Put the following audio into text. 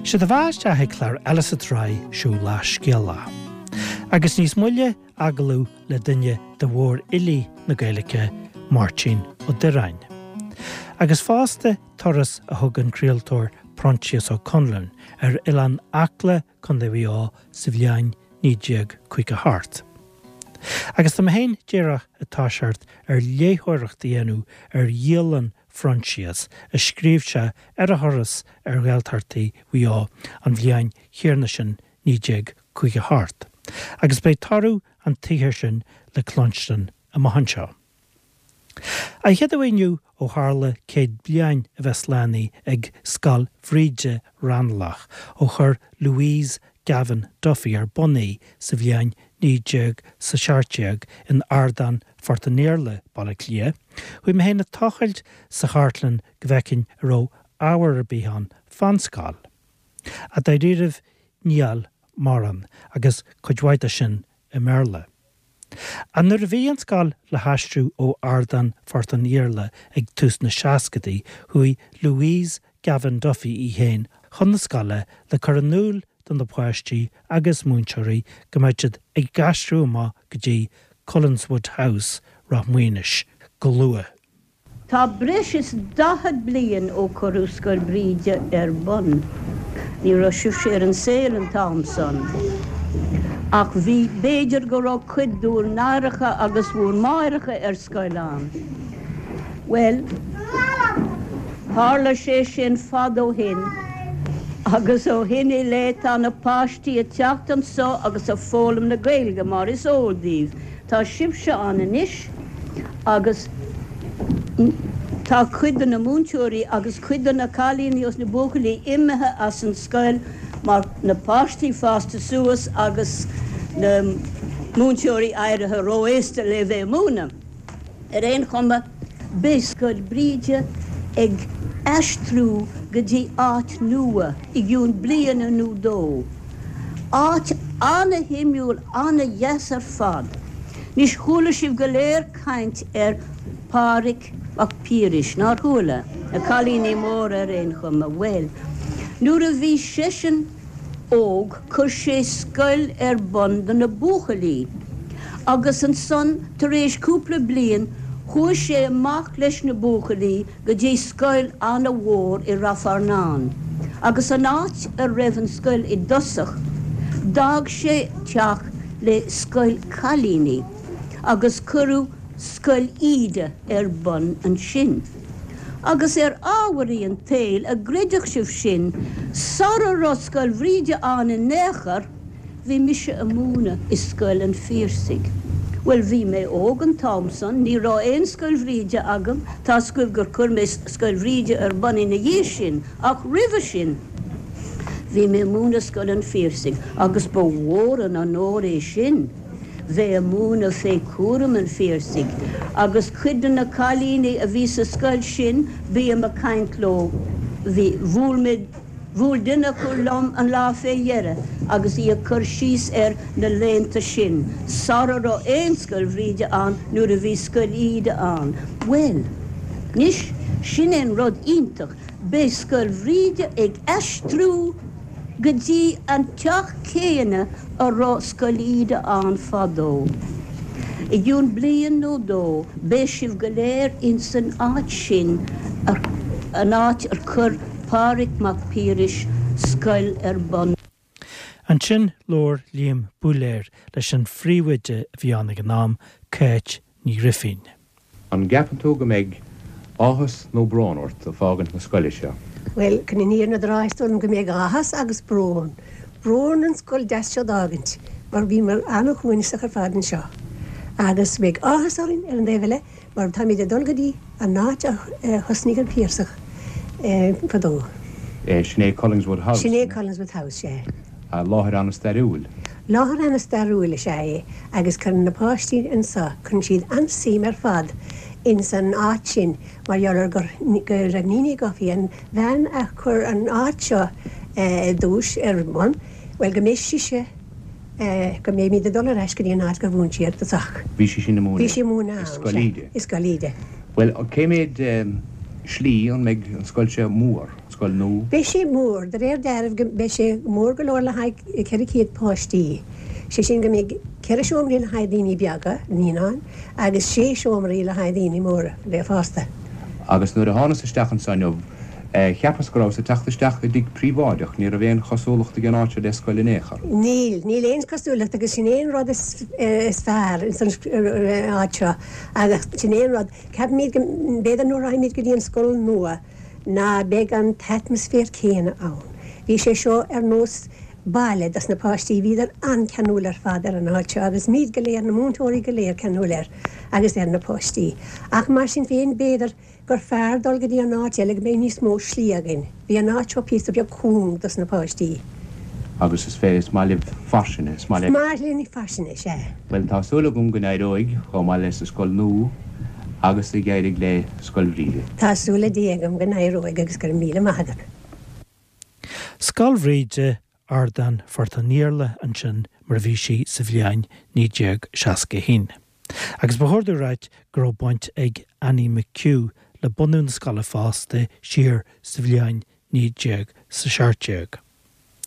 Sé do bheatha isteach ag clár eile sa tsraith seo Lá Scéalach. Agus níos moille agallamh le duine de mhórfhilí na Gaeilge, Máirtín Ó Direáin. Agus fosta turas a thug an craoltóir Proinsias Ó Conluain ar Oileán Acla, Co. Mhaigh Eo sa bhliain 1958. Agus tá mé féin díreach ag toiseacht ar léitheoireacht a dhéanamh ar dhialann Phroinsias a scríobh sé ar a thuras ar Ghaeltachtaí Mhaigh Eo an bhliain chéanna sin 1958, agus beidh toradh an tsaothair sin le cluinstin amach anseo. An chéad uair inniu ó tharla 100 bliain a bheith slánaithe ag Scoil Bhríde, Raghnallach, ó chuir Louise Gavan Duffy ar bun í sa bhliain 1917 in Ardán Phort an Iarla, Baile Átha Cliath, chuaigh mé féin ag tochailt sa chartlann go bhfeicfinn an raibh ábhar ar bith ann fán scoil. Ach dáiríribh níl mórán, agus cuid mhaith de sin i mBéarla. Ach nuair a bhí an scoil le haistriú ó Ardán Phort an Iarla ag tús na seascadaí, chuaigh Louise Gavan Duffy í féin chun na scoile le cur in iúl do na páistí agus múinteoirí go mbeadh siad ag aistriú amach go dtí Cullenswood House, Ráth Maonais, go luath. Tá breis is 40 bliain ó cuireadh Scoil Bhríde ar bun. Ní raibh sibhse ar an saol an t-am san. Ach bhí, b'fhéidir go raibh cuid d'bhur n-aithreacha agus bhur máithreacha ar scoil ann. Bhuel, tharla sé sin fad ó shin agus ó shin i leith tá na páistí ag teacht anso agus ag foghlaim na Gaeilge mar is eol daoibh. Tá sibhse ann anois agus tá cuid de na múinteoirí agus cuid de na cailíní agus na buachaillí imithe as an scoil mar na páistí fásta suas agus na múinteoirí éirithe ró-aosta le bheith ag múineadh. Ar aon chuma, beidh Scoil Bhríde ag aistriú go dtí áit nua i gcionn bliana nó dó. Áit ana-shuimiúil, ana-dheas ar fad. Anois, chuala sibh go léir caint ar Phádhraic Mac Piarais, nár chuala? Na cailíní móra ar aon chuma. Bhuel, nuair a bhí seisean óg chuir sé scoil ar bun do na buachaillí agus ansan tar éis cúpla bliain chuaigh sé amach leis na buachaillí go dtí scoil ana-mhór i Rath Fearnáin agus an áit a raibh an scoil i dtosach d'fhág sé teach le scoil cailíní agus cuireadh Scoil Íde ar bun ansin. Agus ar ámharaí an tsaoil, a gcreidfeadh sibh sin, sara raibh Scoil Bhríde ann in aon chor, Bhí mise a múineadh i Scoil an Phiarsaigh. Bhuel, bhí mé óg an t-am san, ní raibh aon Scoil Bhríde agam, tá's agaibh gur chuir mé Scoil Bhríde ar bun ina dhiaidh sin, ach roimhe sin, bhí mé a múineadh Scoil an Phiarsaigh agus ba mhór an onóir é sin, bheith a múineadh fé chúram an Phiarsaigh. Agus cuid de na cailíní a bhí sa scoil sin, bím a caint leo, bhí, bhuail mé, Bhuail duine acu liom an lá fé dheireadh agus í ag cur síos ar na laethanta sin, sara raibh aon Scoil Bhríde ann, nuair a bhí Scoil Íde ann. Bhuel, anois, sin é an rud iontach, beidh Scoil Bhríde ag aistriú go dtí an teach céanna a raibh Scoil Íde ann fadó. I gcionn bliain nó dó beidh sibh go léir ins an áit sin, an áit ar chuir Pádraig Mac Piarais scoil ar bun. Ansin labhair Liam Búiléir leis an phríomhoide a bhí ann ag an am, Cáit Ní Ghrifín. An gceapann tú go mbeidh áthas nó brón ort ag fágaint na scoile seo? Bhuel, chun an fhírinne a rá, is dóigh liom go mbeidh áthas agus brón. Brón an scoil deas seo d'fhágaint, mar bhíomar an-shuaimhneasach ar fad anseo. Agus beidh áthas orainn ar an dtaobh eile, mar táimid ag dul go dtí an áit a thosnaigh an Piarsach fadó. Sin é Collingswood House? Sin é Collingswood House, sea. Láthair an-stairiúil. Láthair an-stairiúil is ea é agus cuireann na páistí anso, cuireann siad an-suim ar fad ins an áit sin mar gheall ar gur, go raibh Níní Duffy, an bhean a chuir an áit seo i dtús ar bun, bhuel go mbeidh sise, go mbeimid ag dul ar ais go dtí an áit gur mhúin sí ar dtosach. Bhí sí sin ag múineadh. Bhí sí ag múineadh ann, i Scoil Íde. I Scoil Íde. Bhuel, cé mhéad. slí, an mbeidh an scoil seo mór, an scoil nua? Beidh sé mór, de réir dealraimh go mbeidh sé mór go leor le haghaidh 400 páistí, sé sin go mbeidh ceithre seomraí le haghaidh daoine beaga, naíonáin, agus sé seomraí le haghaidh daoine móra, le fásta. Agus nuair a thánas isteach anso inniu, cheapas go rabhas ag teacht isteach i dtigh príobháideach, ní raibh aon chosúlacht ag an áit seo le scoil in aon chor. Níl, níl aon chosúlacht agus sin é an rud is fearr ins an áit seo agus sin é an rud, ceapaimid go, b'fhéidir nuair a raghaimid go dtí an scoil nua ná beidh an t-atmaisféar céanna ann. Bhí sé seo ar nós baile dos na páistí, bhíodar an-ceanúil ar fad ar an áit seo agus muid go léir, na múinteoirí go léir ceanúil air agus ar na páistí. Ach mar sin féin, b'fhéidir gur fearr dul go dtí an áit eile go mbeidh níos mó slí againn. Bhí an áit seo píosa beag cúng dos na páistí. Agus is fé, is maith libh fairsinge, is maith libh. Is maith linn fairsinge, sea. Bhuel, tá súil agam go n-éireoidh chomh maith leis an scoil nua agus a d'éirigh le Scoil Bhríde. Tá súil le Dia agam go n-éireoidh agus go raibh míle maith agat. Scoil Bhríde, Ardán Phort an Iarla ansin mar a bhí sí sa bhliain 1961. Agus ba chóir domh ráit go raibh baint ag Annie McHugh le bunú na scoile fosta siar sa bhliain 1917.